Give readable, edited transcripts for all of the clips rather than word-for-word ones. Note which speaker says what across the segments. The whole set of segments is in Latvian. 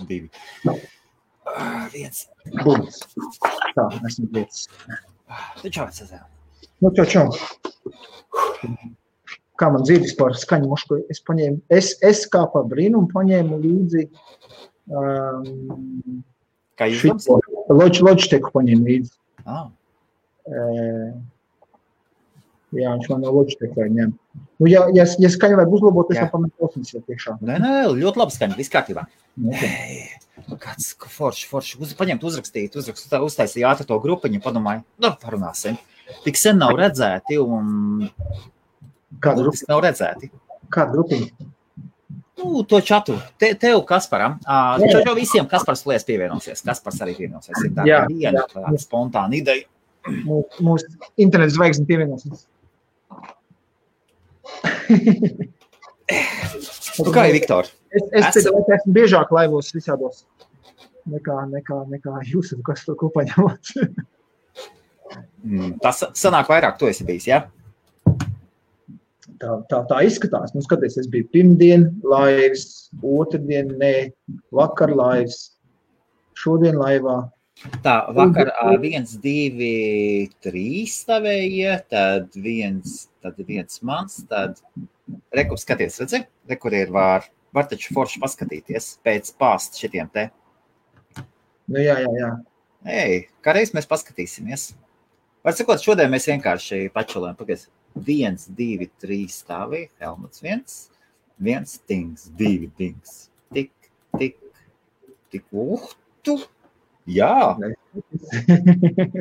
Speaker 1: 2. Viens.
Speaker 2: Būs. Tā, esmu lietas.
Speaker 1: Čau, Cezēr.
Speaker 2: Nu, čau. Kā man dzīves par skaņu mušku, es paņēmu, es kā par brīnumu paņēmu līdzi
Speaker 1: Kā jūs
Speaker 2: Logiteku paņēmu līdzi. Jā, viņš man no Logiteku vai ņem. Nu, ja skaņu vajag uzlabot, es pametu klausnes jau priekšā.
Speaker 1: Nē, ļoti labi skaņa, viss kārtībā. Kāds forši. Paņemt, uzrakstīt, uztaisīja ātri to grupiņu, padomāju, parunāsim. Tik sen nav redzēti un...
Speaker 2: Kāda grupiņa?
Speaker 1: Nav redzēti.
Speaker 2: Kāda grupiņa?
Speaker 1: Nu, to čatu. Tev, Kasparam. Jau visiem Kaspars lies pievienosies. Kaspars arī pievienosies. Ir tā viena spontāna ideja.
Speaker 2: Mūsu interneta zvaigzne pievienosies.
Speaker 1: Kā ir, Viktor?
Speaker 2: Es esmu biežāk laivos visādos nekā jūs, kas to kopā ņemot.
Speaker 1: Tas sanāk vairāk, tu esi bijis, jā?
Speaker 2: Tā izskatās. Nu, skaties, es biju pirmdien laivs, otrdien, vakar laivs, šodien laivā.
Speaker 1: Tā, vakar 1, 2, 3 stāvēja, tad viens mans, tad rekur skaties, redzi? Rekur ir var taču forši paskatīties pēc pāst šitiem te.
Speaker 2: Nu, jā.
Speaker 1: Kā reiz mēs paskatīsimies. Var sakot, šodien mēs vienkārši pačulējam, pagaies. 1, 2, 3 stāvī, Helmuts 1, tings, 2 tings, tik, jā,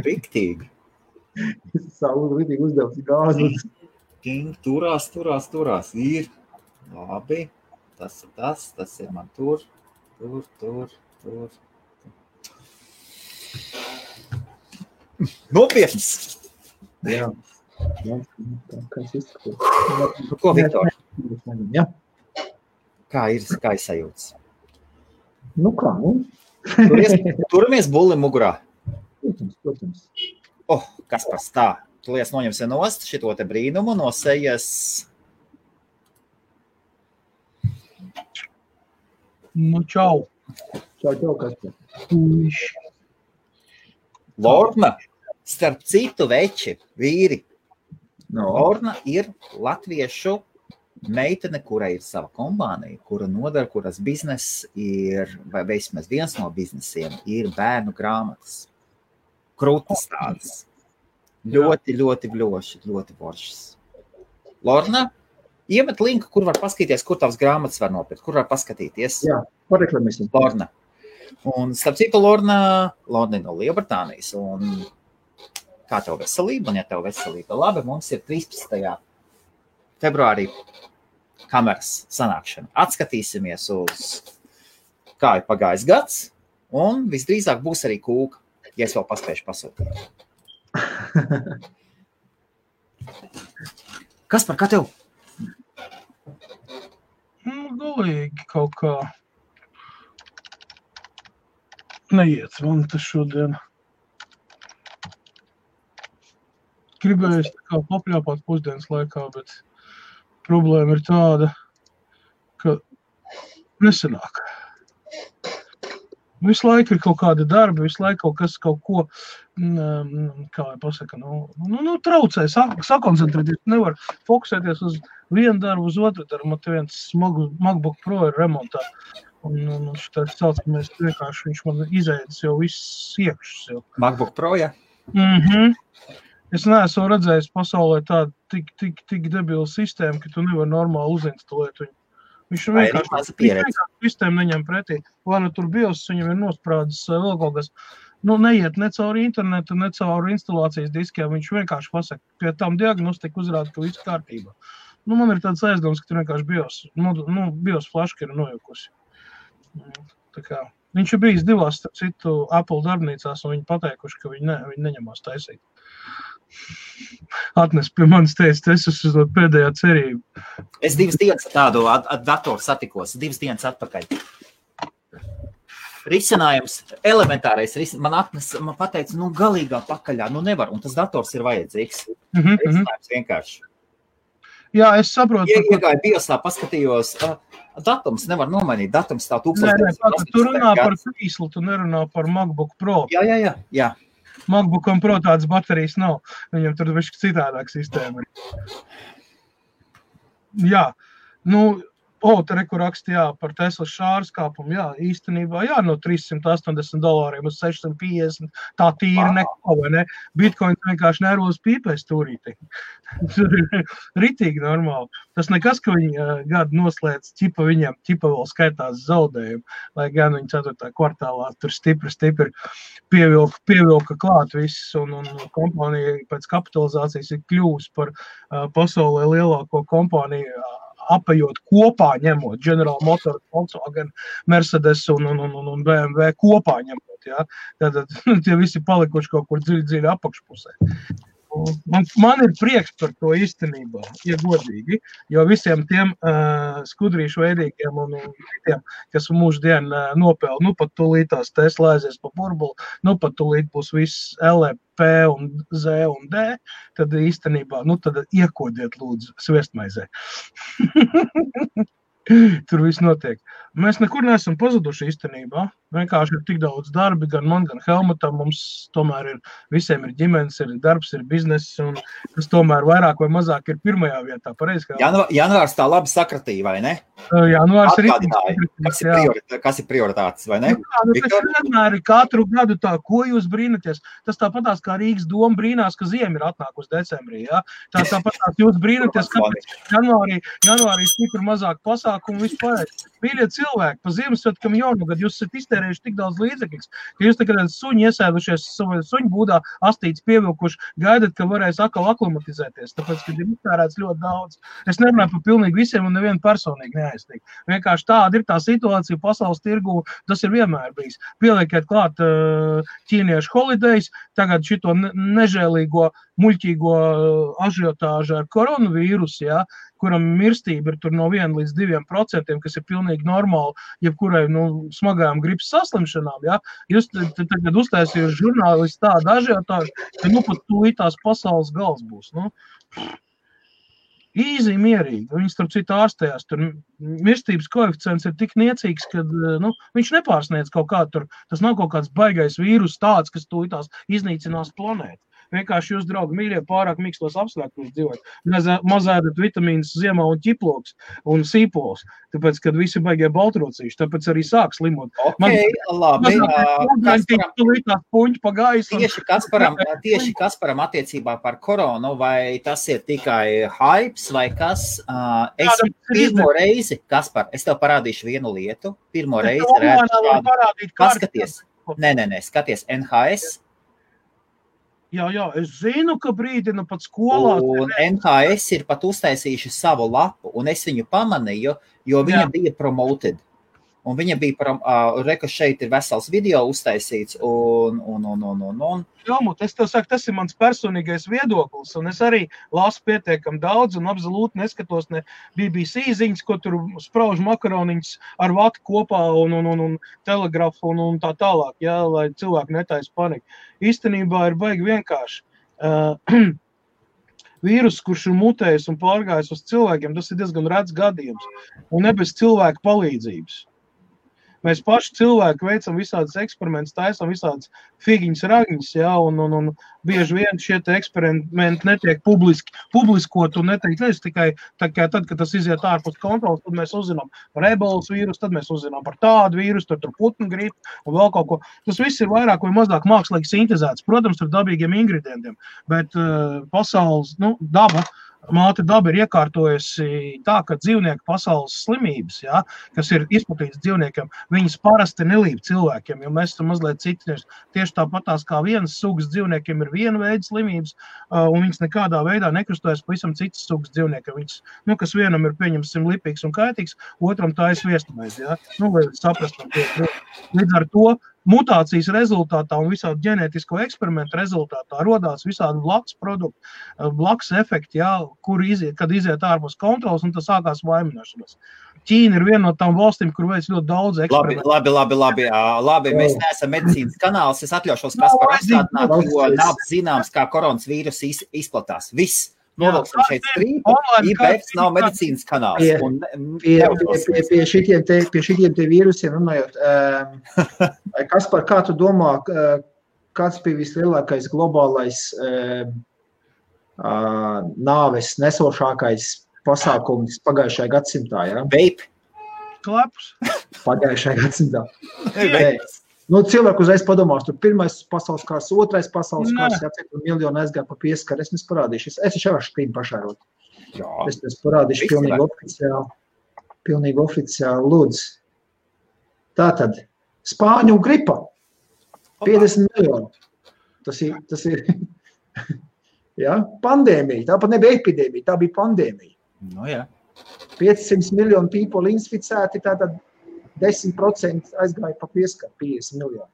Speaker 1: riktīgi.
Speaker 2: Savu riktīgi uzdevs gāzi.
Speaker 1: Ting, turās, ir, labi, tas ir man tur. Nopietns!
Speaker 2: Jā. Kas izskatās?
Speaker 1: Ko, Viktor?
Speaker 2: Jā.
Speaker 1: Kā ir sajūtas?
Speaker 2: Nu kā,
Speaker 1: Turamies bulli mugurā.
Speaker 2: Protams.
Speaker 1: Kaspars, tā. Tu lies noņemsi nost šito te brīnumu no sejas.
Speaker 3: Nu, čau.
Speaker 2: Čau, Kaspar.
Speaker 1: Lorna, starp citu veči, vīri. Lorna ir latviešu meitene, kurai ir sava kompānija, kura nodara, kuras biznes ir, vai vismaz viens no biznesiem, ir bērnu grāmatas. Krūtas tādas. Ļoti bļoši, ļoti foršas. Lorna, iemet linku, kur var paskatīties, kur tavas grāmatas var nopirkt, kur var paskatīties.
Speaker 2: Jā, pareklamēsim.
Speaker 1: Lorna. Un starp citu, Lorna no Lielbritānijas. Un kā tev veselība? Un ja tev veselība labi, mums ir 13. februārī kameras sanākšana. Atskatīsimies uz kā ir pagājis gads, un visdrīzāk būs arī kūka, ja es vēl paspēšu pasūtīt. Kaspar, kā tev?
Speaker 3: Galīgi kaut kā neiet man tas šodien. Gribēju tā kā papļāpāt pusdienas laikā, bet problēma ir tāda, ka nesanāk. Visu laiku ir kaut kāda darba, visu laiku kaut ko, kā lai pasaka, traucē, sakoncentrēties, nevar fokusēties uz vienu darbu, uz otru darbu. Man te viens MacBook Pro ir remontā. Un šitā saucamies vienkārši, viņš man izēdis jau viss iekšus jau.
Speaker 1: MacBook Pro, ja?
Speaker 3: Es neesmu redzējis pasaulē tādu tik debilu sistēmu, ka tu nevar normāli uzinstalēt viņu. Viņš vienkārši sistēmu neņem pretī. Vai nu tur BIOS viņam ir nosprādzis vēl kaut kas. Neiet ne cauri internetu, ne cauri instalācijas diskiem. Viņš vienkārši pasaka, pie tām diagnostika uzrāda, ka viss kārtībā. Man ir tāds aizdoms, ka tur vienkārši BIOS flaška ir nojukusi. Tā kā viņš ir bijis divās, starp citu, Apple darbnīcās, un viņi pateikuši, ka viņi neņemās taisīt. Atnes pie manis teica, es esmu pēdējā cerība.
Speaker 1: Es 2 dienas tādu datoru satikos, 2 dienas atpakaļ. Risinājums, elementārais risinājums, man pateica, galīgā pakaļā, nevar, un tas dators ir vajadzīgs. Risinājums vienkārši.
Speaker 3: Jā, es saprotu.
Speaker 1: Iegāju biosā, paskatījos, datums nevar nomainīt, datums tā 1980.
Speaker 3: Tu runā par krīslu, tu nerunā par MacBook Pro.
Speaker 1: Jā.
Speaker 3: MacBookam Pro tādas baterijas nav. Viņam tur višķi citādāk sistēma. Jā, te reku raksta, par Tesla šāras kāpumu, īstenībā, no $380 uz 650, tā tīri neko, vai ne? Bitcoins vienkārši nervos pīpēs turīti. Ritīgi normāli. Tas nekas, ka viņi gadu noslēdz, viņam vēl skaitās zaudējumu, lai gan viņi 4. kvartālā tur stipri pievilka klāt viss, un kompānija pēc kapitalizācijas ir kļūst par pasaulē lielāko kompāniju, apējot kopā ņemot General Motors, Volkswagen, Mercedes un BMW kopā ņemot, Tad tie visi palikuši kaut kur dziļi apakšpusē. Man ir prieks par to īstenībā, godīgi, jo visiem tiem skudrīšu veidīgiem un tiem, kas mūždien nopēl, pat tūlītās Tesla aizies pa burbuli, pat tūlīt būs viss LP un Z un D, tad īstenībā, tad iekodiet lūdzu sviestmaizē. Tur viss notiek. Mēs nekur neesam pazuduši īstenībā. Vienkārši ir tik daudz darbi, gan man, gan Helmutam. Mums tomēr visiem ir ģimenes, ir darbs, ir bizness, un tas tomēr vairāk vai mazāk ir pirmajā vietā. Pareizi,
Speaker 1: janvārs tā labi sakratīja, vai ne?
Speaker 3: Janvārs ir
Speaker 1: kas ir prioritātes, vai ne?
Speaker 3: Vienmēr ir katru gadu tā, ko jūs brīnaties. Tas tāpatās kā Rīgas doma brīnās, ka ziema ir atnākusi decembrī. Tāpatās jūs brīnaties, kāpēc janvārī stipri mazāk pasākumu vispār. Mīļie cilvēki, pa Ziemassvētkam jaunogad jūs esat iztērējuši tik daudz līdzekļus, ka jūs tagad suņi iesēdušies savā suņu būdā, astītes pievilkuši, gaidat, ka varēs atkal aklimatizēties, tāpēc, ka ir iztērēts ļoti daudz. Es nerunāju par pilnīgi visiem un nevienu personīgi neaizstīgu. Vienkārši tāda ir tā situācija pasaules tirgu, tas ir vienmēr bijis. Pieliekiet klāt ķīniešu holidays, tagad šito nežēlīgo, muļķīgo ažiotāžu ar koronavīrusu, kuram mirstība ir tur no 1 līdz 2%, kas ir pilnīgi normāli, jebkurai smagajām gripas saslimšanām. Jūs tagad uztaisījuši žurnālisti tādu ažiotāžu, ka pat tūlītās pasaules gals būs. Īzi, mierīgi. Viņi starp citu ārstējās. Tur mirstības koeficients ir tik niecīgs, ka viņš nepārsniedz kaut kā tur. Tas nav kaut kāds baigais vīrus tāds, kas tūlītās iznīcinās planētu. Vienkārši jūs, draugi, mīļie, pārāk mīkstos apstākļos dzīvot. Mazēdat vitamīnus ziemā un ķiploks un sīpols, tāpēc, kad visi baigie baltrocīši, tāpēc arī sāk slimot.
Speaker 1: Labi.
Speaker 3: Tieši
Speaker 1: Kasparam attiecībā par koronu, vai tas ir tikai hypes, vai kas? Es pirmo reizi, Kaspar, es tev parādīšu vienu lietu. Pirmo reizi redzu šādu. Paskaties. Nē, skaties, NHS.
Speaker 3: Jā, es zinu, ka brīdina pat skolā.
Speaker 1: Un NHS ir pat uztaisījuši savu lapu, un es viņu pamanīju, jo viņa bija promoted. Un viņa bija, reka šeit ir vesels video uztaisīts, un.
Speaker 3: Jāmut, es tev saku, tas ir mans personīgais viedoklis, un es arī lasu pietiekam daudz, un absolūti neskatos ne BBC ziņas, ko tur sprauž makaroniņas ar vatu kopā, un telegrafu, un tā tālāk, lai cilvēki netais paniku. Īstenībā ir baigi vienkārši. Vīrus, kurš ir mutējis un pārgājis uz cilvēkiem, tas ir diezgan rets gadījums, un ne bez cilvēku palīdzības. Mēs paši cilvēki veicam visādas eksperimentus, taisam visādas figiņas, ragņas, un bieži vien šie eksperimenti netiek publiskot un netiek tikai tad, kad tas iziet ārpus kontrolas, tad mēs uzzinām par ebolas vīrusu, tad mēs uzzinām par tādu vīrusu, tur putnu gripu un vēl kaut ko. Tas viss ir vairāk vai mazāk mākslīgi sintezēts, protams, ar dabīgiem ingredientiem, bet pasaules, māte daba ir iekārtojusi tā, ka dzīvnieku pasaules slimības, kas ir izplatītas dzīvniekiem, viņas parasti nelīp cilvēkiem, jo mēs esam mazliet citi. Tieši tāpatās kā vienas sugas dzīvniekiem ir viena veida slimības, un viņas nekādā veidā nekrustojas pavisam citas sugas dzīvniekiem. Viņas, kas vienam ir, pieņemsim, lipīgs un kaitīgs, otram tā ir sviestamais, lai saprastam. Līdz ar to mutācijas rezultātā un visādu ģenētisko eksperimentu rezultātā rodās visādi blakus produkti, blakus efekti, kad iziet ārpus kontrolas, un tas sākās vainošanas. Ķīna ir viena no tām valstīm, kur veic ļoti daudz eksperimentu.
Speaker 1: Labi, mēs neesam medicīnas kanāls, es atļaušos Kasparu atstādināt, jo nav zināms, kā koronas vīrus izplatās. Viss. Novilksim šeit strīpu, IBFs nav medicīnas kanāls.
Speaker 2: Pie šitiem te vīrusiem runājot, Kaspar, kā tu domā, kāds bija vislielākais globālais nāves nesošākais pasākums pagājušajā gadsimtā, ja?
Speaker 1: Vape.
Speaker 3: Klepus.
Speaker 2: Pagājušajā gadsimtā. Nu, cilvēku uzreiz padomās, tur pirmais pasaules kārs, otrais pasaules kārs, cik miljonu aizgāja pa pieskaru, es parādīšu. Es jau varu štīm pašērot. Es parādīšu pilnīgi oficiāli, lūdzu. Tātad, Spāņu gripa, 50 miljoni. Tas ir ja? Pandēmija, tāpat nebija epidēmija, tā bija pandēmija.
Speaker 1: Nu, jā.
Speaker 2: 500 miljonu people inficēti, tātad 10% aizgāja pa pieskaru, 50 miljoni.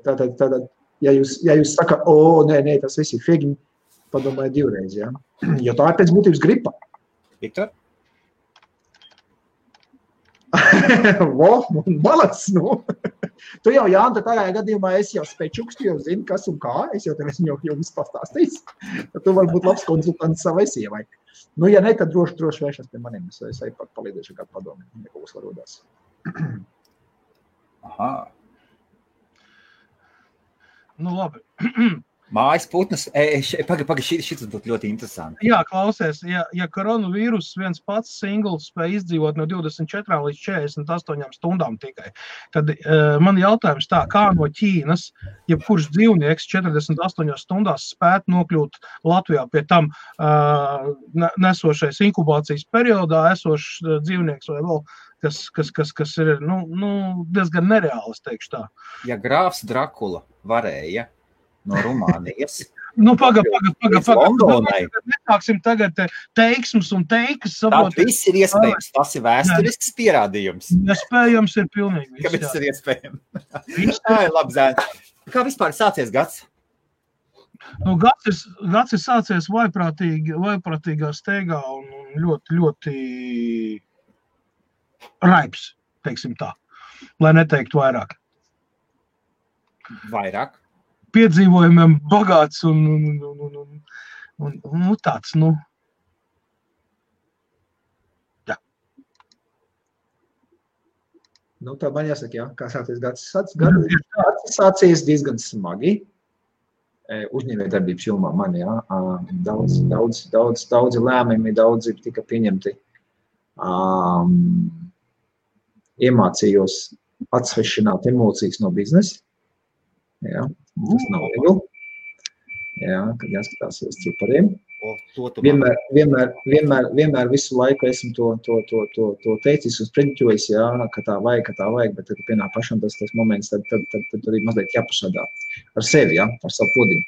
Speaker 2: Tātad, ja jūs sakat, nē, tas viss ir figi, padomājiet divreiz, ja? Jo tā ir pēc būtības gripa.
Speaker 1: Viktor?
Speaker 2: Malac, nu. Tu jau, Jānta, tajā gadījumā es jau spečukstu, jau zinu, kas un kā, es jau tev esmu jau viss pastāstījis. Tu vari būt labs konsultants savai sievai. Nu, ja ne, tad droši vēršas pie maniem, es arī palīdēšu kādu padomu, ja kaut kas varodās.
Speaker 1: Aha.
Speaker 3: Nu, labi.
Speaker 1: Mājas putnas, šis būtu ļoti interesanti.
Speaker 3: Jā, klausies, ja koronavīrus viens pats singls spēj izdzīvot no 24 līdz 48 stundām tikai, tad man jautājums tā, kā no Ķīnas, jebkurš dzīvnieks 48 stundās spētu nokļūt Latvijā, pie tam nesošais inkubācijas periodā esošs dzīvnieks vai vēl, kas ir diezgan nereāls, teikšu tā.
Speaker 1: Ja grāfs Drakula varēja no Rumānijas.
Speaker 3: Paga. Nesāksim tagad teiksmus un teikas.
Speaker 1: Tātad viss ir iespējams. Tas ir vēsturisks pierādījums.
Speaker 3: Iespējams ir pilnīgi viss.
Speaker 1: Kāpēc tas ir iespējams? Labi, Zēn. Kā vispār sācies gads?
Speaker 3: Nu, gads ir sācies vaiprātīgā steigā un ļoti, ļoti raips, teiksim tā, lai neteiktu vairāk.
Speaker 1: Vairāk?
Speaker 3: Piedzīvojumiem bagāts un tāds, jā.
Speaker 2: Nu, tā man jāsaka, jā, kā sācies gads. Sācies diezgan smagi. Uzņēmējdarbības jomā man, jā. Daudzi lēmumi, daudzi tika pieņemti. Iemācījos atsvešināt emocijas no biznesa. Jā, tas nav viegli. Jā, kad jāskatās uz cipariem. Vienmēr visu laiku esmu to teicis uz preģiķojis, jā, ka tā vajag, bet tad pienāk pašam tas moments, tad arī mazliet jāpašādā ar sevi, jā, ar savu podiņu,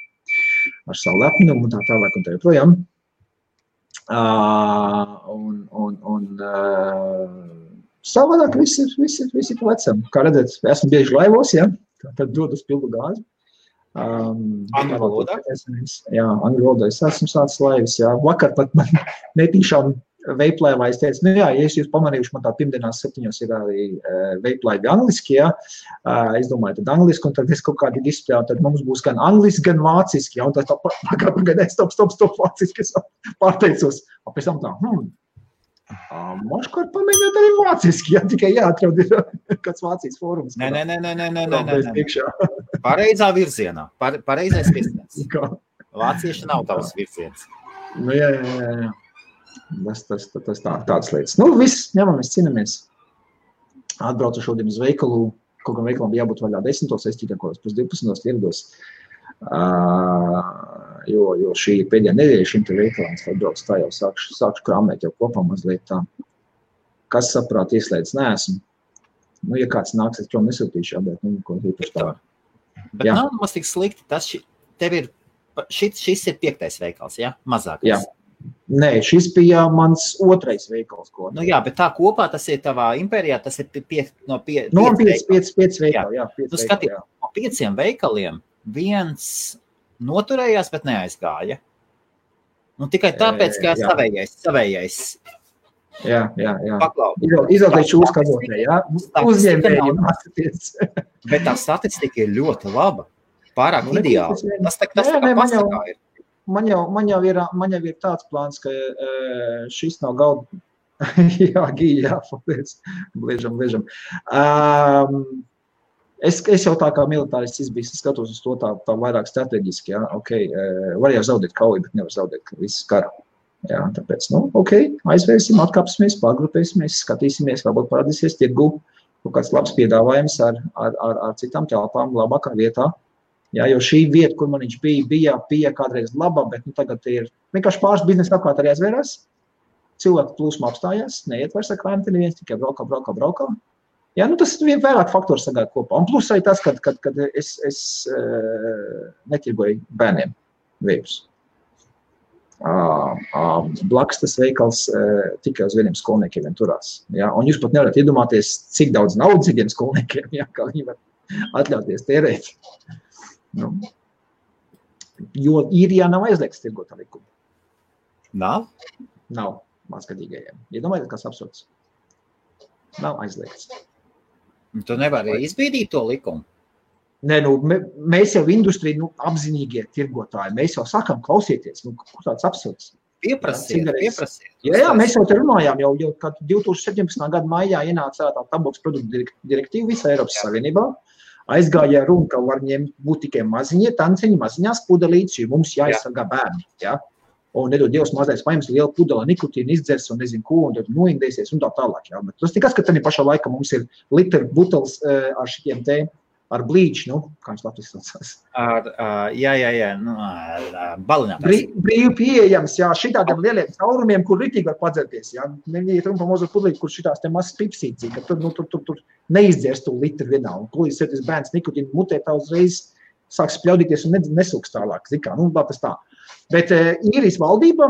Speaker 2: ar savu lepnumu un tā tālāk un tā joprojām. Savādāk viss ir pa vecam. Kā redzēt, esmu bieži laivos, jā. Tad dod uz pildu gāzi.
Speaker 1: Angļu valodā?
Speaker 2: Jā, angļu valodā. Es esmu sācis laivas, jā. Vakar pat man netīšām veiplēvā es teicu, ja jūs pamanījuši, man tā pirmdienās 7 ir arī veiplaivi angliski, jā. Es domāju, tad angliski, un tad es kaut kādi displejā, tad mums būs gan angliski, gan vāciski, jā. Un tad tā pagaidēs, stop, vāciski, es pārteicos. Pēc tam tā, maškārt pamēģināt arī vāciski, jā, tikai jāatrod kāds Vācijas fórums.
Speaker 1: Nē. Pareizā virzienā, pareizais virziens. Vācieši nav tavs virziens.
Speaker 2: Nu, jā. Tas tāds lietas. Nu, viss, ņemamies, cinamies. Atbraucu šodien uz veikalu, kaut gan veikalam bija jābūt vaļā 10, es tikai kaut pēc 12 ierados. Jo šī pēdējā nedēļa šim te veikalam, es atbraucu tā jau sākšu krāmēt jau kopā mazliet tā. Kas saprāt ieslēdz neesmu. Nu, ja kāds nāks, es prom nesūtīšu, jā, bet ko īpaši tā.
Speaker 1: Bet jā. Nav mums tik slikti, šis ir 5. veikals, jā? Mazākais.
Speaker 2: Jā. Nē, šis bija mans 2. veikals.
Speaker 1: Nu jā, bet tā kopā tas ir tavā impērijā, tas ir 5 veikali.
Speaker 2: No 5 veikali, jā.
Speaker 1: Nu skatīt, no 5 veikaliem viens noturējās, bet neaizgāja. Nu tikai tāpēc, ka savējais.
Speaker 2: Jā.
Speaker 1: Paklau.
Speaker 2: Izvēlēties uzkazotē, jā. Uzņēmēji mācīties.
Speaker 1: Bet tā statistika ir ļoti laba. Pārāk ideāli. Tas tā kā pasakā ir.
Speaker 2: man jau ir tāds plāns, ka šis nav galda. Jā, Gīja, paldies. Bliežam. Es jau tā kā militārists izbijis, skatos uz to tā vairāk strateģiski, jā, var jau zaudēt kauju, bet nevar zaudēt visu karu. Jā, tāpēc, aizvērsim, atkāpsimies, pārgrupēsimies, skatīsimies, varbūt parādīsies tirgu kaut kāds labs piedāvājums ar citām telpām labākā vietā. Jā, jo šī vieta, kur man viņš bija kādreiz laba, bet tagad ir vienkārši pāris biznesa apkārt arī aizvērās. Cilvēku plūsma apstājās, neiet vairs ar krāmti neviens, tikai braukā. Jā, tas vien vairāk faktori sagāja kopā. Un plus arī tas, kad es netirgoju bērniem vējus. Blakus tas veikals tikai uz vieniem skolniekiem vien turās. Ja? Un jūs pat nevarat iedomāties, cik daudz naudas ir tiem skolniekiem, ja? Kā viņi var atļauties tērēt. Jo īrijā nav aizliegts tirgot ar likumu.
Speaker 1: Nav?
Speaker 2: Nav mazgadīgajiem. Iedomājieties, kas absurds. Nav aizliegts.
Speaker 1: Tu nevari izbīdīt to likumu?
Speaker 2: Nē, mēs jau industrija, apzinīgie tirgotāji, mēs jau sakam, klausieties, kur tāds absurds.
Speaker 1: Pieprasiet.
Speaker 2: Jā, mēs jau te runājām, jau kad 2017. gada maijā ienāca tā tabaks produktu direktīva visā Eiropas Savienībā, aizgāja runa, ka var ņemt būt tikai maziņie tanciņi, maziņās pudelītes, jo mums jāizsargā bērni, ja? Un nedod Dievs mazais paņems lielu pudeli, nikotīnu izdzers un nezinu ko, un tad noindēsies un tā tālāk, ja? Bet tas tikai, ka tad pašā laikā mums ir litra butelis ar šitiem te ar blīču, kā viņš Latvijas saucās.
Speaker 1: Balinātājs.
Speaker 2: Brīvi pieejams, jā, šitādiem lieliem caurumiem, kur ritīgi var padzerties, jā. Neviet runa pa mazo pudlīti, kur šitās te mazas pipsīcī, ka tur neizdzers to litru vienā. Un plūdīs sēties bērns nikotīnu mutē, tā uzreiz sāks spļaudīties un nesūks tālāk. Zikā, tas tā. Bet īrijas valdība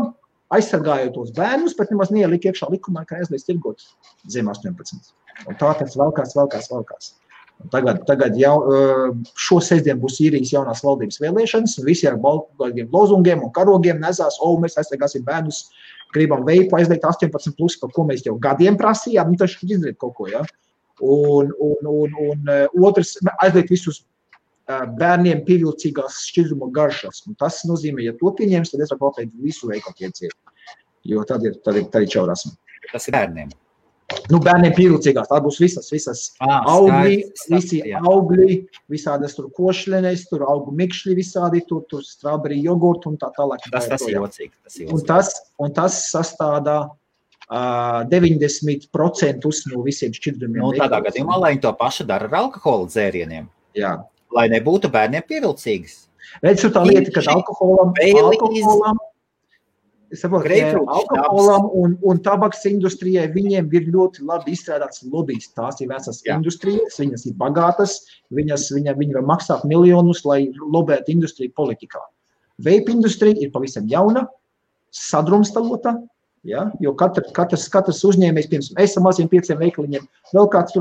Speaker 2: aizsargājot tos bērnus, bet nemaz neielika iekšā likumā, ka aizliedz tirgot zem 18. Un tā tas valkās. Tagad jau šo sestdienu būs īrijas jaunās valdības vēlēšanas, un visi ar baltiem lozungiem un karogiem nesās, mēs aizsargāsim bērnus, gribam veipu aizliegt 18+, par ko mēs jau gadiem prasījām, taču izdarīt kaut ko, ja? Un otrs, aizliegt visus bērniem pievilcīgās šķidruma garšas, un tas nozīmē, ja to pieņems, tad es varu pateikt visu veikalu ieciet, jo tad ir čaurasmi.
Speaker 1: Tas ir bērniem.
Speaker 2: Bērniem pievilcīgās, tā būs visas augļi, visi augļi, visādas tur košļenes, tur augu mikšļi visādi, tur strawberry jogurtu un tā tālāk.
Speaker 1: Tas ir jocīgi.
Speaker 2: Un tas sastādā 90% no visiem šķidrumiem.
Speaker 1: Tādā gadījumā, lai viņi to pašu dara ar alkohola dzērieniem.
Speaker 2: Jā.
Speaker 1: Lai nebūtu bērniem pievilcīgas.
Speaker 2: Redz, tā lieta, ka alkoholam un tabaks industrijai viņiem ir ļoti labi izstrādāts lobijs. Tās ir vecas industrijas, viņas ir bagātas, viņi var maksāt miljonus, lai lobētu industriju politikā. Vape industrija ir pavisam jauna, sadrumstalota, ja? Jo katrs uzņēmējs, piemēram, esam maziem 5 veikaliņiem, vēl kāds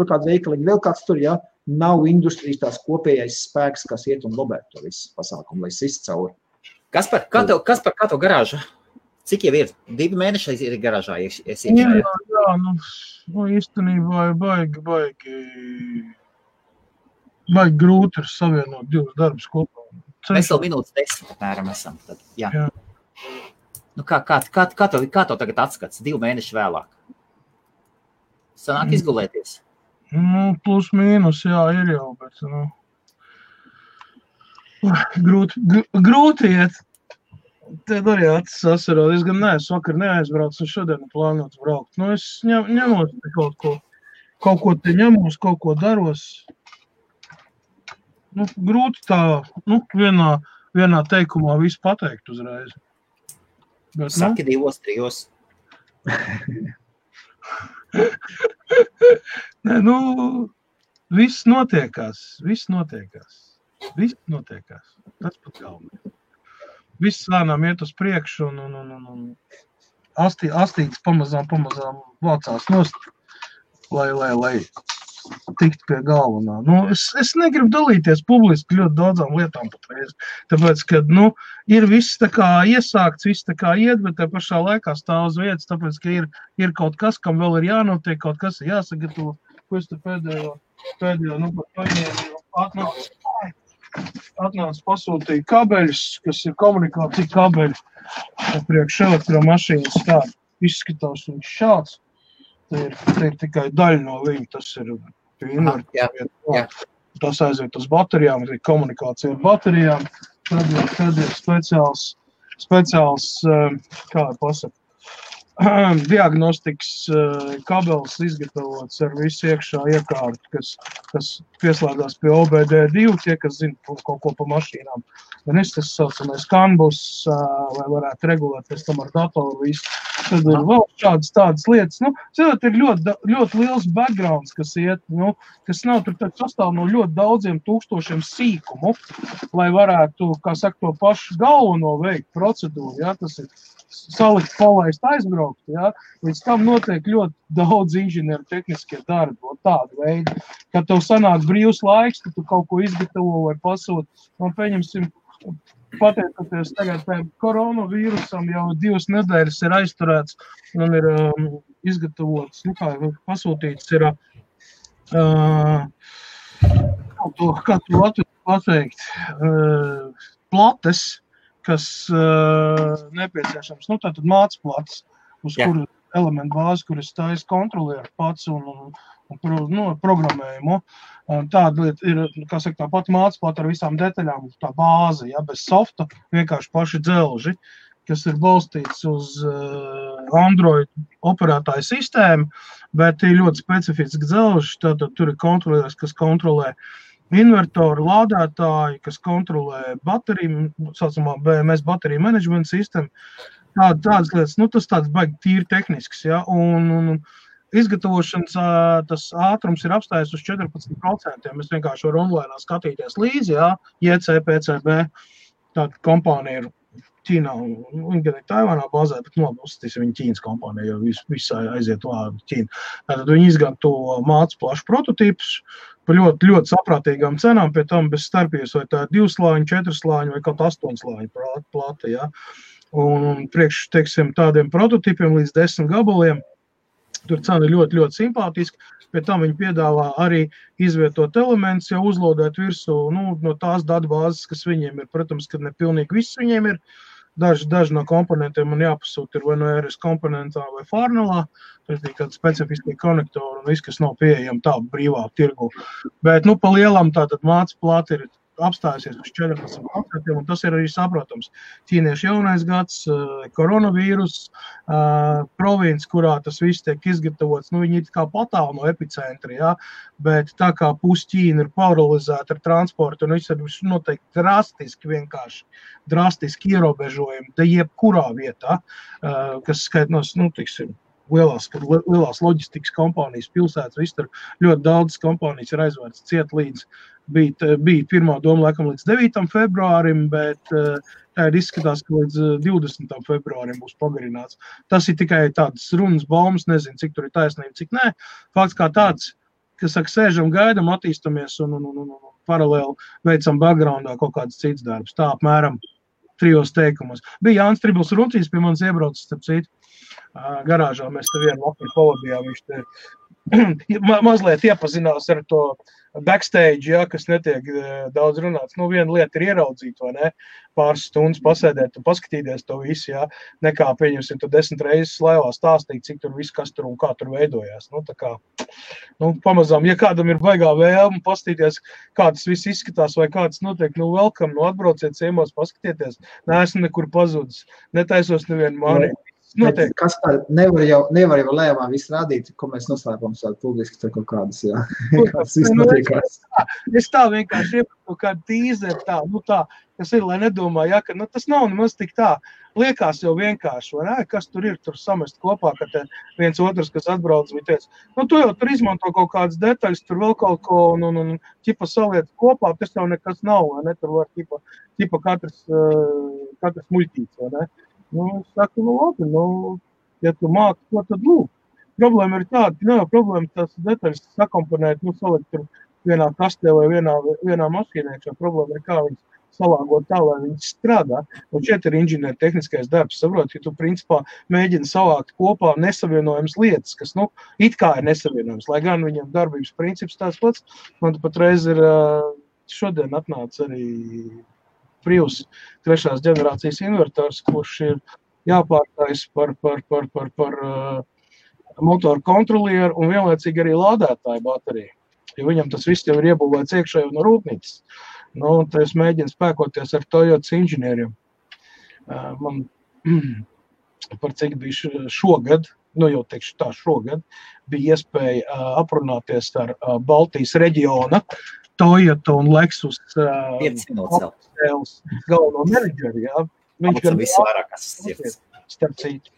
Speaker 2: tur, ja? Nav industrijas tās kopējais spēks, kas iet un lobētu to visu pasākumu, lai sist cauri.
Speaker 1: Kaspar, kā tev garāža? Cik jau ir? 2 mēneši ir garāžā iekšā?
Speaker 3: Jā, īstenībā ir baigi grūti ar savienot 2 darbus kopā.
Speaker 1: Mēs vēl minūtes 10 apmēram esam. Tad, jā. Kā tev tagad atskats 2 mēneši vēlāk? Sanāk izgulēties?
Speaker 3: Plus mīnus, jā, ir jau, bet grūti iet. Tad arī acis asarot. Es gan neesmu vakar neaizbraucu, un šodien plānots braukt. Es ņemos kaut ko te ņemos, kaut ko daros. Grūti tā, vienā teikumā visu pateikt uzreiz. Bet,
Speaker 1: Saki 2, 3.
Speaker 3: Nē, viss notiekās. Tas pat galvenais. Viss lēnām iet uz priekšu un astīts pamazām vācās nost, lai tikt pie galvenā. Es negribu dalīties publiski ļoti daudzām lietām patreiz, tāpēc, ka, ir viss tā kā iesākts, viss tā kā iet, bet te pašā laikā stāv uz vietas, tāpēc, ka ir kaut kas, kam vēl ir jānotiek, kaut kas ir jāsagatavo, ko es te pēdējo, par paņēmu atnācu. atnāca pasūtīja kabeļus, kas ir komunikācija kabeļi. Priekš elektromašīnas tā izskatās viņš šāds. Te ir tikai daļa no viņa, tas ir invertors. Tas aiziet uz baterijām, ir komunikācija ar baterijām. Tad ir speciāls kā pasaka, diagnostikas kabelis izgatavots ar visu iekšā iekārtu, kas pieslēgās pie OBD2, tie, kas zina kaut ko pa mašīnām. Un tas saucamais kanbus, lai varētu regulēt pēc tam ar datoru visu. Tad ir vēl tādas lietas. Nu, ir ļoti liels backgrounds, kas iet, nu, kas nav tur sastāv no ļoti daudziem tūkstošiem sīkumu, lai varētu, kā saka, to pašu galveno veikt procedūru, ja, tas ir salikt, palaist, aizbraukt, ja? Līdz tam notiek ļoti daudz inženieru tehniskie darbi, tādu veidu. Kad tev sanāk brīvs laiks, kad tu kaut ko izgatavo vai pasūt, un pieņemsim, pateicoties tagad koronavīrusam, jau 2 nedēļas ir aizturēts un ir izgatavots, nu kā pasūtīts ir, kā tu Latviju pateikt, plates, kas nepieciešams, nu tātad mācplats, uz kuru elementu bāzi, kuras taisa kontrolieru pats un programmējumu. Tāda lieta ir, kā saka, tā pati mācplata ar visām detaļām, tā bāze, ja, bez softa, vienkārši paši dzelži, kas ir balstīts uz Android operētāju sistēmu, bet ir ļoti specifiski dzelži, tātad tur ir kontrolieris, kas kontrolē invertoru, lādētāji, kas kontrolē bateriju, saucamā BMS bateriju management sistēmu, tādas lietas, nu tas tāds baigi tīri tehnisks, ja, un izgatavošanas tas ātrums ir apstājies uz 14%, mēs vienkārši varam online skatīties līdzi, ja, JCPCB, tāda kompānija ir Ķīnā, viņi gan ir Taivānā bāzē, bet uzstīsim viņa Ķīnas kompānija, jo viss aiziet vārdu Ķīna. Tātad viņi izgatavo mācu plašu prototīpus, par ļoti, ļoti saprātīgām cenām, pie tam bez starpības, vai tā 2 slāņu, 4 slāņu vai kaut 8 slāņu plata, ja. Un priekš, teiksim, tādiem prototīpiem līdz 10 gabaliem, tur cena ir ļoti, ļoti simpātiska, pie tam viņi piedāvā arī izvietot elementus, jau uzlodēt virsū, nu, no tās datubāzes, kas viņiem ir, protams, kad ne pilnīgi viss viņiem ir, daži no komponentiem man jāpasūt ir vai no RS komponentā vai Farnelā, tas ir kādi specifiski konektori un viss, kas nav pieejami tā brīvā tirgu. Bet, nu, pa lielam tātad māca plāti ir apstājusies uz 14%, un tas ir arī saprotams. Ķīniešu jaunais gads, koronavīrus, province, kurā tas viss tiek izgatavots, nu, viņi ir kā patālu no epicentra, ja? Bet tā kā Ķīna ir paralizēta ar transportu, un viss ir noteikti drastiski ierobežojumi, da jebkurā vietā, kas skaitnos, nu, tiksim, lielās loģistikas kompānijas pilsētas, viss tur ļoti daudz kompānijas ir aizvērts ciet līdz, bija pirmā doma laikam līdz 9. februārim, bet tā ir izskatās, ka līdz 20. februārim būs pagarināts. Tas ir tikai tādas runas baumas, nezinu, cik tur ir taisnība, cik nē. Fakts kā tāds, kas saka, sēžam, gaidam, attīstamies un paralēli veicam backgroundā kaut kāds cits darbs. Tā apmēram 3 teikumos. Bija Jānis Tribls Runcīs pie manis iebraucis, starp citu. Garāžā mēs te vienu vakaru pavadījām, viņš te mazliet iepazinās ar to backstage, ja, kas netiek daudz runāts. Nu, viena lieta ir ieraudzīt, vai ne, pāris stundas pasēdēt un paskatīties to visu, ja, nekā pieņemsim to 10 reizes laivā stāstīt, cik tur viss, kas tur un kā tur veidojās. Nu, tā kā, nu, pamazām, ja kādam ir baigā vēlme paskatīties, kā tas viss izskatās vai kā tas notiek, nu, welcome, nu, atbrauciet ciemos, paskatieties, neesmu nekur pazudis, netaisos nevienu mani.
Speaker 2: Kas tā nevar jau lēmā visu rādīt, ko mēs noslēpam tādu publiski tur kaut kādas, jā. Kāds viss notiekās.
Speaker 3: Es tā vienkārši iepastu kādu tīzeri tā, nu tā, kas ir, lai nedomā, ja, ka, nu, tas nav nemaz tik tā. Liekas jau vienkārši, vai ne, kas tur ir, tur samest kopā, ka te viens otrs, kas atbrauc, bija teica, nu, tu jau tur izmanto kaut kādas detaļas, tur vēl kaut ko, un ķipa saliet kopā, tas jau nekas nav, vai ne, tur var ķipa katrs muļķīts, vai ne. Nu, es saku, nu, labi, nu, ja tu māki, ko tad lūk. Problēma ir tāda, ka nav problēma tās detaļas sakomponēt, nu, salikt tur vienā kastē vai vienā mašīnē, šo problēma ir kā viņas salāgot tā, lai viņas strādā. Un šeit ir inženieru tehniskais darbs, saprot, ka tu principā mēģini savākt kopā nesavienojams lietas, kas, nu, it kā ir nesavienojams, lai gan viņam darbības princips tās pats. Man patreiz ir šodien atnāca arī Prius 3. ģenerācijas invertors, kurš ir jāpārtais par motoru kontrolieru un vienlaicīgi arī lādētāju bateriju. Jo viņam tas viss jau ir iebūvēts iekšēji no rūpnīcas. Nu, tad es mēģinu spēkoties ar Toyotas inženieriem. Man par cik bija šogad, nu jau teikšu tā šogad, bija iespēja aprunāties ar Baltijas reģiona Toyota un Lexus galveno menedžeri, jā. Viņš gan
Speaker 1: visvairākas sirds.
Speaker 3: Starp citu,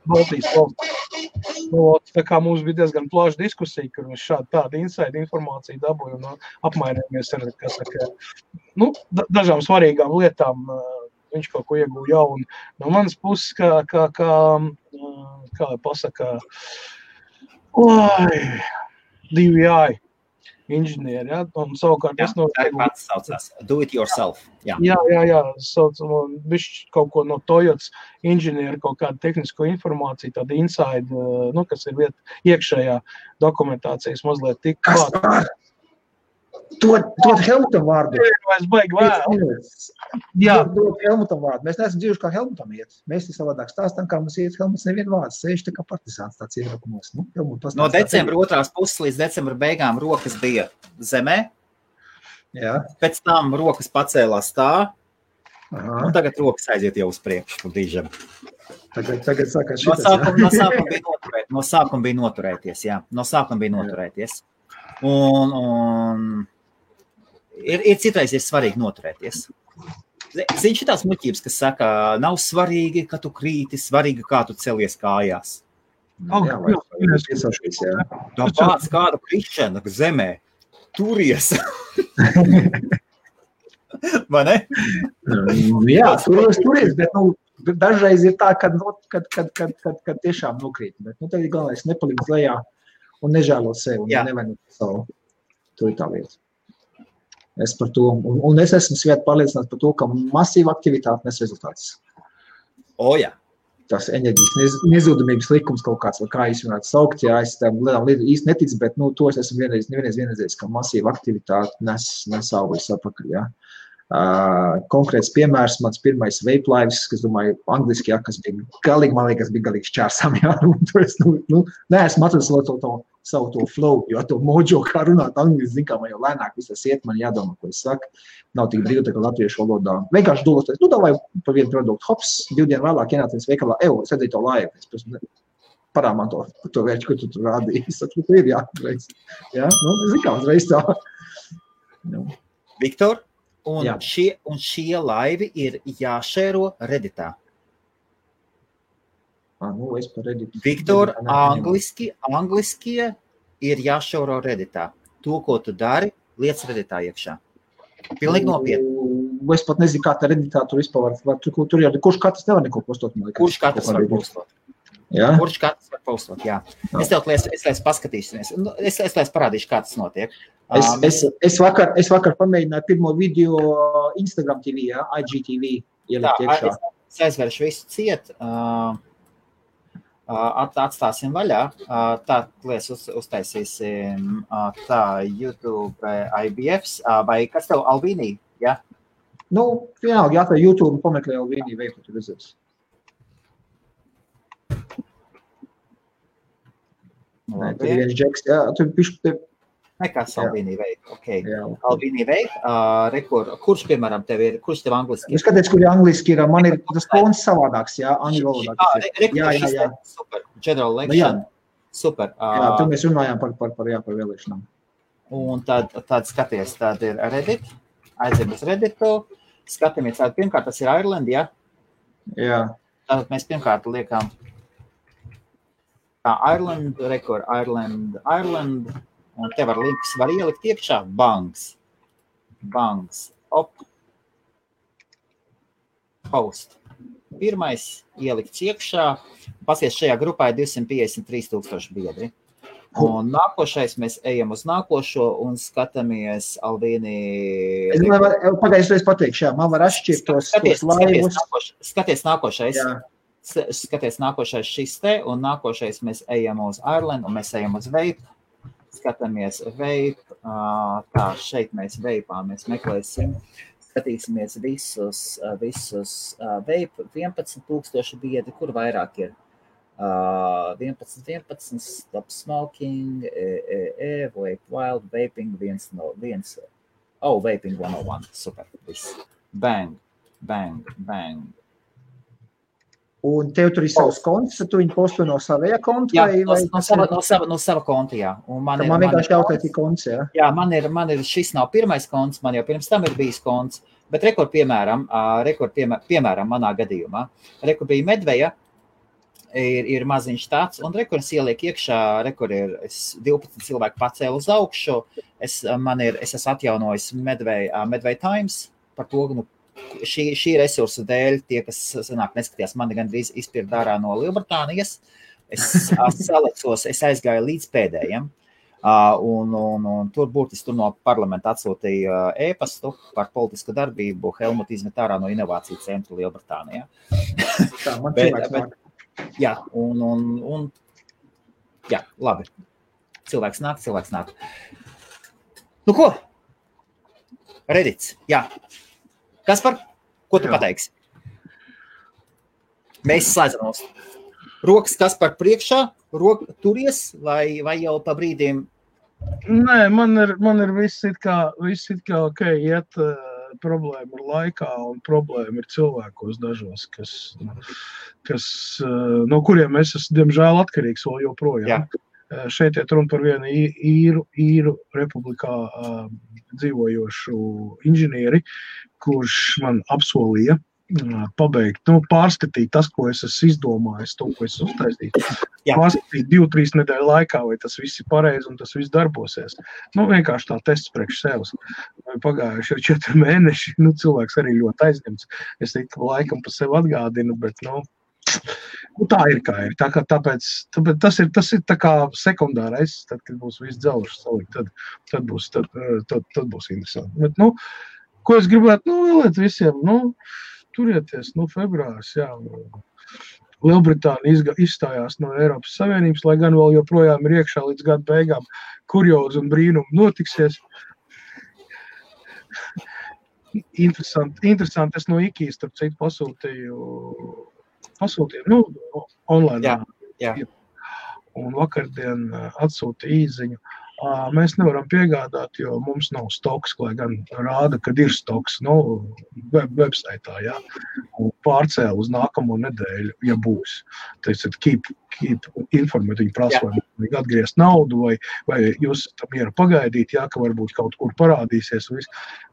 Speaker 3: Baltijas valsts. Tā kā mums bija diezgan plaša diskusija, kur mēs tādu inside informāciju dabūju un apmainījāmies ar, dažām svarīgām lietām. Viņš kaut ko ieguva jaunu. No manas puses, kā pasaka, DVI inženieri, ja? Un savukārt es
Speaker 1: pats saucās. Do it yourself.
Speaker 3: Jā. Bišķi kaut ko no Toyotas inženieri, kaut kādu tehnisko informāciju, tāda inside, kas ir iekšējā dokumentācijas mazliet tik klāt.
Speaker 2: Dod Helmutam vārdu.
Speaker 3: Es baigi vēl.
Speaker 2: Dod Helmutam vārdu. Mēs neesam dzīvuši, kā Helmutam iet. Mēs te savādāk stāstam, kā mums iet. Helmuts nevienu vārdu sēž tā kā partizāns tāds iebrakumos.
Speaker 1: No decembra 2. puses līdz decembra beigām rokas bija zemē. Jā. Pēc tam rokas pacēlās tā. Aha. Un tagad rokas aiziet jau uz priekšu.
Speaker 2: Tagad sākās šitas.
Speaker 1: No sākuma bija noturēties, jā. No sākuma bija noturēties. Un ir citreiz ir svarīgi noturēties. Zini, šitās muļķības, kas saka, nav svarīgi, ka tu krīti, svarīgi, kā tu celies kājās. Tāpēc kādu krišanu zemē turies. Vai ne?
Speaker 2: Jā, turies, bet dažreiz ir tā, kad tiešām nokrīt. Bet tad ir galvenais nepalikt lejā un nežēlot sevi, un nevainot savu. To ir tā lieta. Es par to, un es esmu svēti pārliecināts par to, ka masīva aktivitāte nes rezultātus.
Speaker 1: Jā.
Speaker 2: Tas enerģijas nezudumības likums kaut kāds, vai kā jūs varētu saukt, jā, es tam īsti neticu, bet, to es esmu vienreiz, ka masīva aktivitāte nes augļus atpakaļ, jā. Konkrēts piemērs, mans pirmais vape lives, kas, domāju, angliski, kas bija galīgi šķērsām, jā, un to es, neesmu atradis savu to flow, jo to mojo, kā runāt angliski, zin, kā man jau lēnāk visas iet, man jādomā, ko es saku, nav tik brīvi, tā kā latviešu valodā. Vienkārši doloties, davai par vienu produktu, hops, 2 dienu vēlāk ienācies veikalā, es redzēju to laivu, es parā man to vērķi, ko tu tur rādīji, es saku, tu ir jāreiz, jā, zin, kā uzreiz tā.
Speaker 1: Viktor? Un šie laivi ir jāšēro Redditā.
Speaker 2: Es par Redditu.
Speaker 1: Viktor, angliskie ir jāšēro Redditā. To, ko tu dari, liec Redditā iekšā. Pilnīgi nopietni.
Speaker 2: Es pat nezinu, kā tā Redditā tur vispār var. Tur jau kurš katrs nevar neko postot.
Speaker 1: Kurš katrs var postot?
Speaker 2: Jā?
Speaker 1: Kurš katrs var postot, jā. Es laiz paskatīsimies. Es laiz parādīšu, kā tas notiek.
Speaker 2: Es vakar pamēģināju pirmo video Instagram TV, jā, IGTV ielikt iekšā.
Speaker 1: Es aizveršu visu ciet, atstāsim vaļā, tā lies uztaisīsim tā YouTube IBFs, vai kas tev Albīnī, jā?
Speaker 2: Vienalga, jā, tā YouTube pameklē Albīnī veiku, tu redzēs. Nē, tur ir viens džeks, jā, tur pišķi.
Speaker 1: Nekas Albīnī veik, Albīnī veik, kurš, piemēram, kurš tev angliski ir?
Speaker 2: Es skaties, kur angliski ir, man ir tas tons savādāks, jā, angļu valodā.
Speaker 1: Jā, super, general election, super.
Speaker 2: Jā, tur mēs runājām par vēlēšanām.
Speaker 1: Un tad skaties, tad ir Reddit, aiziem uz Redditu, skatāmies, pirmkārt, tas ir Ireland, jā?
Speaker 2: Jā.
Speaker 1: Tātad mēs pirmkārt liekam Ireland, Ireland, un te var links, var ielikt iekšā, banks, post. Pirmais ielikts iekšā, pasies šajā grupā ir 253,000 biedri. Un nākošais mēs ejam uz nākošo un skatāmies Albīnī.
Speaker 2: Pagājušreiz pateikšu, jā, man var atšķirt tos laivus.
Speaker 1: Skaties nākošais. Jā. Skaties nākošais šis te, un nākošais mēs ejam uz Ireland, un mēs ejam uz vape. Skatāmies vape, Tā, šeit mēs veipā, mēs meklēsim, skatīsimies visus veipu, 11,000 biedri, kur vairāk ir. 11, stop smoking, vape wild, vaping, vaping 101, super, viss. Bang.
Speaker 2: Un tev tur ir savs konts, tu viņu posto no savajā konta?
Speaker 1: Jā, no sava konta, jā. Un man
Speaker 2: vienkārši jautāt, ir konts, jā? Jā,
Speaker 1: man ir, šis nav pirmais konts, man jau pirms tam ir bijis konts, bet piemēram, manā gadījumā, bija Medveja, ir maziņš tāds, un es ieliek iekšā, es 12 cilvēku pacēlu uz augšu, es esmu atjaunojis Medveja Times, par to, šī resursa dēļ, tie, kas neskatījās, mani gandrīz izpirkt ārā no Lielbritānijas, es salecos, es aizgāju līdz pēdējiem, un tur burtiski no parlamenta atsūtīja ēpastu par politisku darbību, Helmut izmet ārā no inovāciju centra Lielbritānijā.
Speaker 2: Tā, man cilvēks nāk.
Speaker 1: Jā, un jā, labi. Cilvēks nāk. Nu ko? Reddits, jā. Kaspar, ko tu pateiksi? Mēs slēdzamos. Rokas Kaspar priekšā, turies vai jau pa brīdiem?
Speaker 3: Nē, man ir viss it kā ok, iet problēma ir laikā un problēma ir cilvēkos dažos, kas no kuriem es esmu, diemžēl, atkarīgs vēl joprojām. Jā. Šeit iet runa par vienu īru republikā dzīvojošu inženieri, kurš man apsolīja pabeigt, pārskatīt tas, ko es esmu izdomājis, to, ko es uztaisīju. Pārskatīt 2-3 nedēļu laikā, vai tas viss ir pareizi un tas viss darbosies. Vienkārši tā tests priekš sevis. Pagājuši jau 4 mēneši, cilvēks arī ļoti aizņemts. Es laikam pa sevi atgādinu, bet, tā ir kā ir. Tāpēc tas ir tā kā sekundārais, tad, kad būs viss dzelžs salikt, tad būs interesanti. Bet, ko es gribētu, vēlēt visiem, turieties, februārs, jā. Lielbritānija izstājās no Eiropas Savienības, lai gan vēl joprojām ir iekšā līdz gada beigām kuriozi un brīnumi notiksies. Interesanti, es no IKEA, starp citu, pasūtīju, online.
Speaker 1: Jā.
Speaker 3: Un vakardien atsūtīja īziņu. Mēs nevaram piegādāt, jo mums nav stoks, lai gan rāda, kad ir stoks, websaitā, jā. Un pārcēla uz nākamo nedēļu, ja būs. Tātad, keep informēt, viņi prasa, vai vajag atgriezt naudu, vai jūs tam iera pagaidīt, jā, ka varbūt kaut kur parādīsies.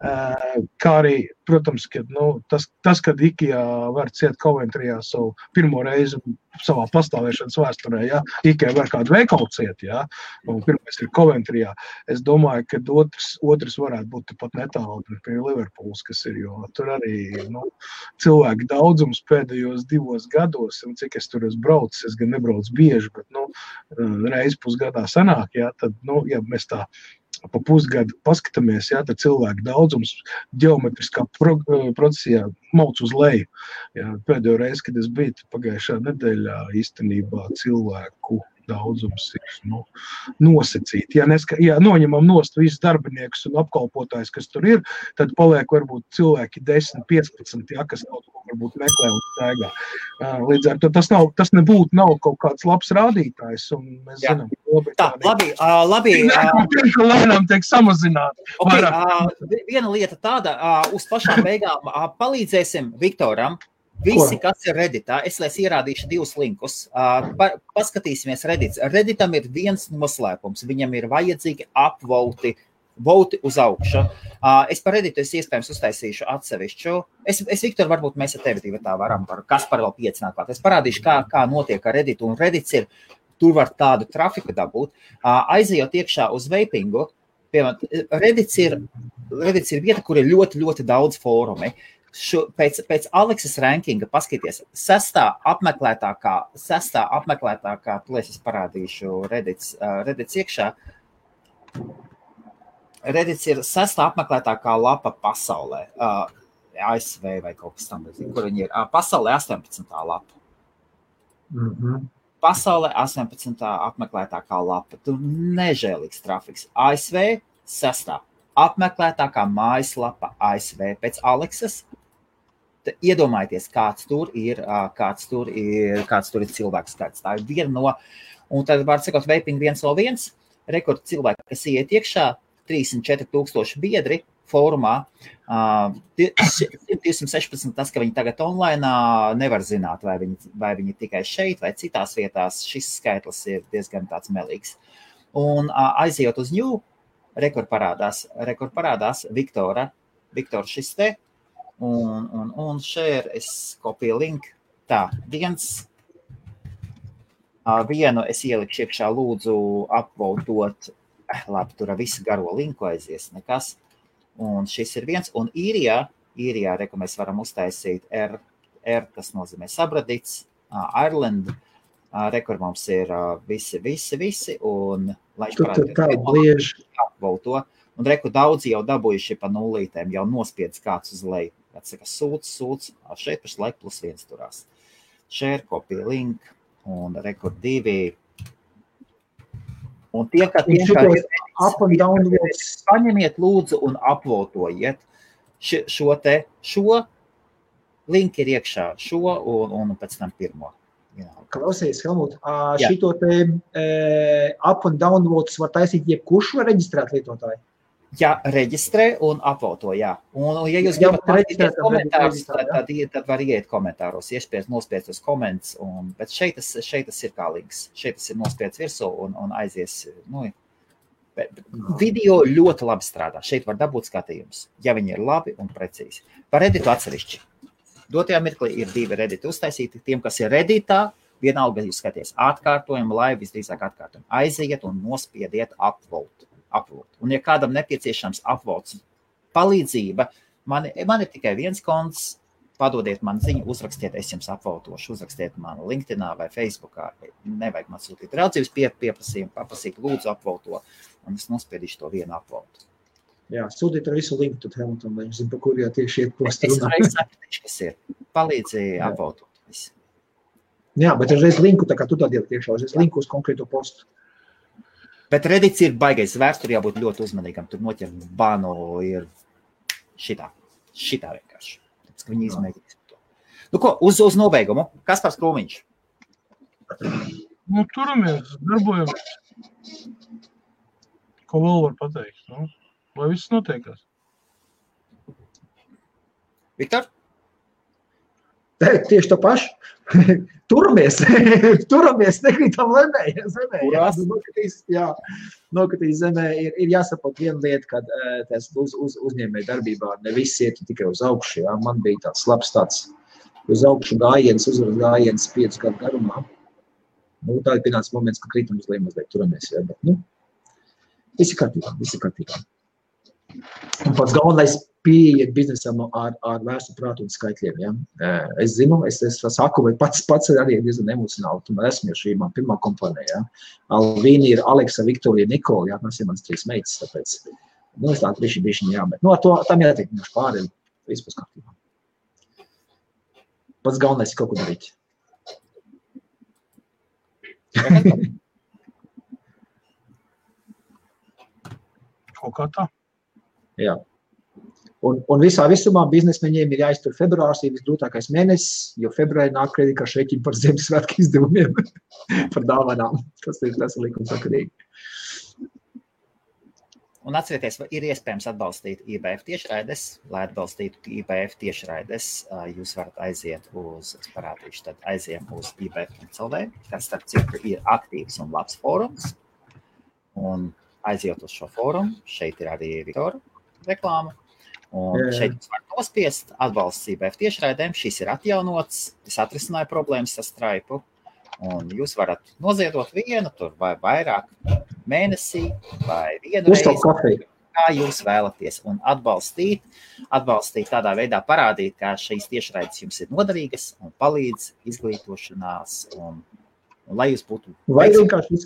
Speaker 3: Kā arī, protams, kad, tas, kad IKEA var ciet Coventryjā savu pirmo reizi savā pastāvēšanas vēsturē, jā, IKEA var kādu veikalu ciet, jā, un pirmais ir Coventryjā. Es domāju, ka otrs varētu būt pat netālu pie Liverpools, kas ir, jo tur arī, cilvēku daudzums pēdējos 2 gados, un cik es tur esmu braucis, es gan nebraucu bieži, bet, reizi pusgadā sanāk, jā, tad, ja mēs tā pa pusgadu paskatāmies, jā, tad cilvēku daudzums ģeometriskā procesijā mauc uz leju. Jā, pēdējo reizi, kad es biju pagājušā nedēļā, īstenībā cilvēku daudzums ir nosacīti. Ja noņemam nost visus darbiniekus un apkalpotājus, kas tur ir, tad paliek varbūt cilvēki 10-15, ja, kas kaut ko varbūt meklē un staigā. Līdz ar to tas nebūtu nav kaut kāds labs rādītājs, un mēs zinām,
Speaker 1: Tā, labi.
Speaker 3: Lēnām tiek samazināt.
Speaker 1: Okay, viena lieta tāda, uz pašām beigām palīdzēsim Viktoram. Visi, kas ir Redditā, es ierādīšu 2 linkus. Paskatīsimies Reddits. Redditam ir viens noslēpums. Viņam ir vajadzīgi upvoti uz augšu. Es par Redditu iespējams uztaisīšu atsevišķu. Es Viktor, varbūt mēs ar tevi tā varam, kas par vēl 5 nāk klāt. Es parādīšu, kā notiek ar Redditu. Un Reddits ir, tur var tādu trafiku dabūt. Aizejot iekšā uz vapingu, piemēram, Reddits ir vieta, kur ir ļoti, ļoti daudz fórumi. Pēc Aleksas rankinga paskaties, 6. apmeklētākā, plēs es parādīšu Reddits iekšā. Reddits ir 6. apmeklētākā lapa pasaulē, ASV vai kaut kas tam, kur viņi ir. Pasaulē 18. lapa. Pasaulē 18. apmeklētākā lapa. Tur nežēlīgs trafiks. ASV Sastā. Apmeklētākā mājaslapa ASV pēc Aleksas. Iedomājieties, kāds tur ir cilvēku skaits. Tā ir viena no, un tad var sakot, Vaping 101, rekord cilvēki, kas iet iekšā, 34,000 biedri fórumā, 216, tas, ka viņi tagad online, nevar zināt, vai viņi tikai šeit vai citās vietās, šis skaitlis ir diezgan tāds melīgs. Un aizejot uz New, rekord parādās Viktora šis te, un share, es kopiju link, tā, vienu es ielikšu iekšā, lūdzu apvotot, labi, tur visu garo linku aizies, nekas, un šis ir viens, un īrijā, reku mēs varam uztaisīt R, tas nozīmē sabradīts, Ireland, rekur mums ir visi, un lai apvoto, un reku daudzi jau dabūjuši pa nulītēm, jau nospiedz kāds uz leju, atsaka sūc, šeit pašlaik +1 turās. Share, kopija link, un rekur 2. Un tie, kā paņemiet lūdzu un apvotojiet šo link ir iekšā, un pēc tam pirmo.
Speaker 2: Klausies, Helmut, šito te up un downvotes var taisīt jebkurš vai reģistrēt lietotāji?
Speaker 1: Jā, reģistrē un apvoto, jā. Un ja jūs gribat patīties komentārus, tad var iet komentāros, nospiedz uz komentus, bet šeit tas ir kā links. Šeit tas ir nospiedz virsū un aizies. Video ļoti labi strādā. Šeit var dabūt skatījums, ja viņi ir labi un precīzi. Par Redditu atsevišķi. Dotajā mirklī ir 2 Redditi uztaisīti. Tiem, kas ir Redditā, vienalga jūs skaties atkārtojumu, live visdrīzāk atkārtojumu. Aiziet un nospiediet upvote. Un ja kādam nepieciešams upvotes palīdzība, man ir tikai viens konts, padodiet man ziņu, uzrakstiet, es jums upvotošu, uzrakstiet man LinkedInā vai Facebookā, nevajag man sūtīt raudzības pieprasījumu, papasīt lūdzu upvoto, un es nospiedīšu to vienu upvotu.
Speaker 2: Jā, sūtīt ar visu linku, tad Helmutam, lai viņš zina, pa kur jau tieši iet postu runā.
Speaker 1: Es sapratīšu, kas ir. Palīdzi upvotot visu.
Speaker 2: Jā, bet reiz linku, tā kā tu tādi iekšā, reiz linku uz konkrēto postu.
Speaker 1: Bet Reddits ir baigais vērts, tur jābūt ļoti uzmanīgam, tur noķer banu ir šitā vienkārši. Tāpēc, ka viņi izmēģinās to. Nu ko, uz nobeigumu, Kaspars Krūmiņš?
Speaker 3: Turamies, darbojamies. Ko vēl var pateikt? Lai viss notiekās.
Speaker 2: Viktor? Tieši to pašu. Turamies, nekrītam nokritīs zemē. Ir jāsaprot viena lieta, kad tas uzņēmēju darbībā ne viss iet tikai uz augšu. Jā. Man bija tāds labs uz augšu gājiens, uzvaras gājiens 5 gadu garumā. Tā ir pienācis moments, ka kritam uz leju mazliet turamies. Jā, bet, visi kārtībā. Un pats galvenais pieiet biznesam ar vērstu prātu un skaitļiem. Ja? Es zinu, es saku, vai pats arī diezgan emocionāli, tomēr esmu jau šī man pirmā kompānija. Ja? Alvīni ir Aleksa, Viktorija, Nikola, jā, tas ir mans 3 meitas, tāpēc, es tā bišķiņ jāmet. Ar to tam jātiek pāri, vispār kārtībā. Pats galvenais ir kaut ko darīt.
Speaker 3: Kaut kā tā.
Speaker 2: Jā. Un visumā biznesmeņiem ir jāiztur februārs, ir visgrūtākais mēnesis, jo februārī nāk kreditkaršu rēķini par Ziemassvētku izdevumiem, par dāvanām. Tas ir likumsakarīgi.
Speaker 1: Un atcerieties, ir iespējams atbalstīt IBF tiešraides. Lai atbalstītu IBF tiešraides, jūs varat aiziet aiziem uz IBF.CLV, kas starp citu ir aktīvs un labs fórums. Un aiziet uz šo fórumu, šeit ir arī Viktora reklāma. Un šeit jūs varat nospiest atbalsts IBF tiešraidēm. Šis ir atjaunots, es atrisināju problēmas ar Stripe. Un jūs varat noziedot vienu tur vai vairāk mēnesī vai vienu reizi, kā jūs vēlaties. Un atbalstīt tādā veidā parādīt, kā šīs tiešraides jums ir noderīgas un palīdz izglītošanās. Un lai jūs būtu...
Speaker 2: Vai vienkārši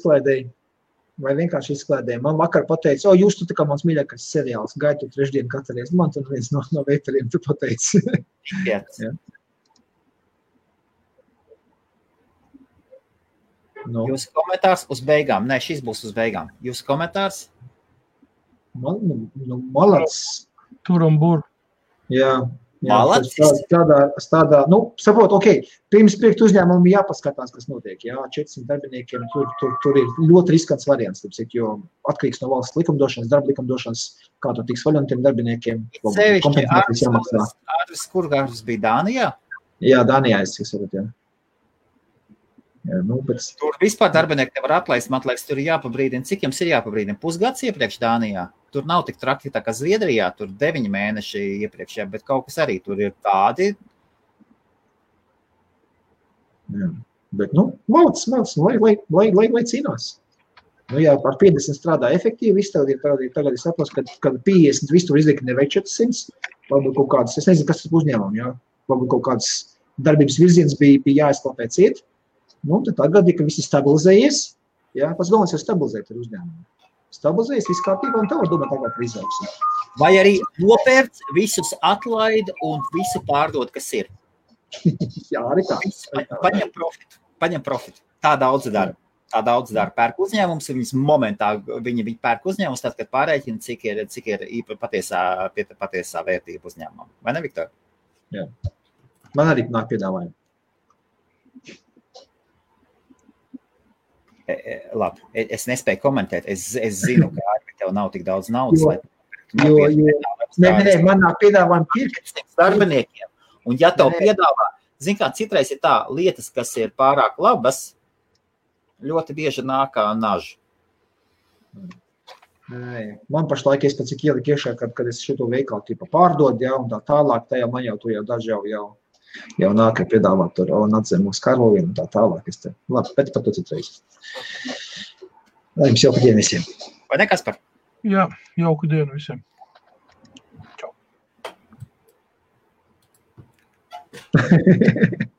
Speaker 2: izklēdēji. Man vakar pateica, jūs tu tā kā mans mīļākais seriāls, gaitu trešdienu katru reizi. Man tur viens no veitariem tu pateici.
Speaker 1: Jā.
Speaker 2: No.
Speaker 1: Jūsu komentārs uz beigām. Nē, šis būs uz beigām. Jūsu komentārs?
Speaker 2: Malacis.
Speaker 3: Tur un bur.
Speaker 2: Jā.
Speaker 1: Malacis.
Speaker 2: Tādā, saprot, pirms pirkt uzņēmumu jāpaskatās, kas notiek. Jā, 400 darbiniekiem tur ir ļoti riskants variants, jo atkarīgs no valsts likumdošanas, darba likumdošanas, kā tur tiks vaļā no tiem darbiniekiem.
Speaker 1: Sevišķi Ārvis Kurgārs bija Dānijā?
Speaker 2: Jā, Dānijā es saprotu, jā. Jā,
Speaker 1: Tur vispār darbinieki nevar atlaist, man liekas, tur ir jāpabrīdina. Cik jums ir jāpabrīdina? Pusgads iepriekš Dānijā? Tur nav tik traki tā kā Zviedrijā, tur 9 mēneši iepriekšējā, bet kaut kas arī tur ir tādi.
Speaker 2: Jā, bet, malacis, lai cīnās. Jā, par 50 strādā efektīvi, tagad es saprotu, kad 50 visu tur izliek nevajag 400, varbūt kaut kādas, es nezinu, kas tas uzņēmumi, jā, varbūt kaut kādas darbības virziens bija jāizklāpē ciet, tad tagad, ka viss ir stabilizējies, jā, pats galvenais ir stabilizēt ar uzņēmumu. Stabilizējas viss kārtībā un tā var domāt tagad par izaugsmi.
Speaker 1: Vai arī nopērc, visus atlaid un visu pārdod, kas ir?
Speaker 2: Jā, arī tā.
Speaker 1: Paņem profitu. Tā daudz dara. Pērk uzņēmums, viņas momentā viņi pērk uzņēmums, tad, kad pārēķina, cik ir patiesā vērtība uzņēmumam. Vai ne, Viktor?
Speaker 2: Jā. Man arī nāk piedāvājumi.
Speaker 1: Labi, es nespēju komentēt. Es zinu, ka tev nav tik daudz naudas.
Speaker 2: Man nāk piedāvājumi pirkt
Speaker 1: darbiniekiem. Un ja tev piedāvā, zin kā, citreiz ir tā lietas, kas ir pārāk labas, ļoti bieži nāk kā naža.
Speaker 2: Man pašlaik es pēc cik ieliku iekšā, kad es šito veikalu tipa pārdod, jā, un tā tālāk, tajā man jau daži jau nāk, piedāvāt tur, un atzēm mūsu karloviem, un tā tālāk. Labi, bet par to citreiz. Lai jums jauka diena visiem.
Speaker 1: Vai ne, Kaspar?
Speaker 3: Jā, jauka diena visiem. Čau.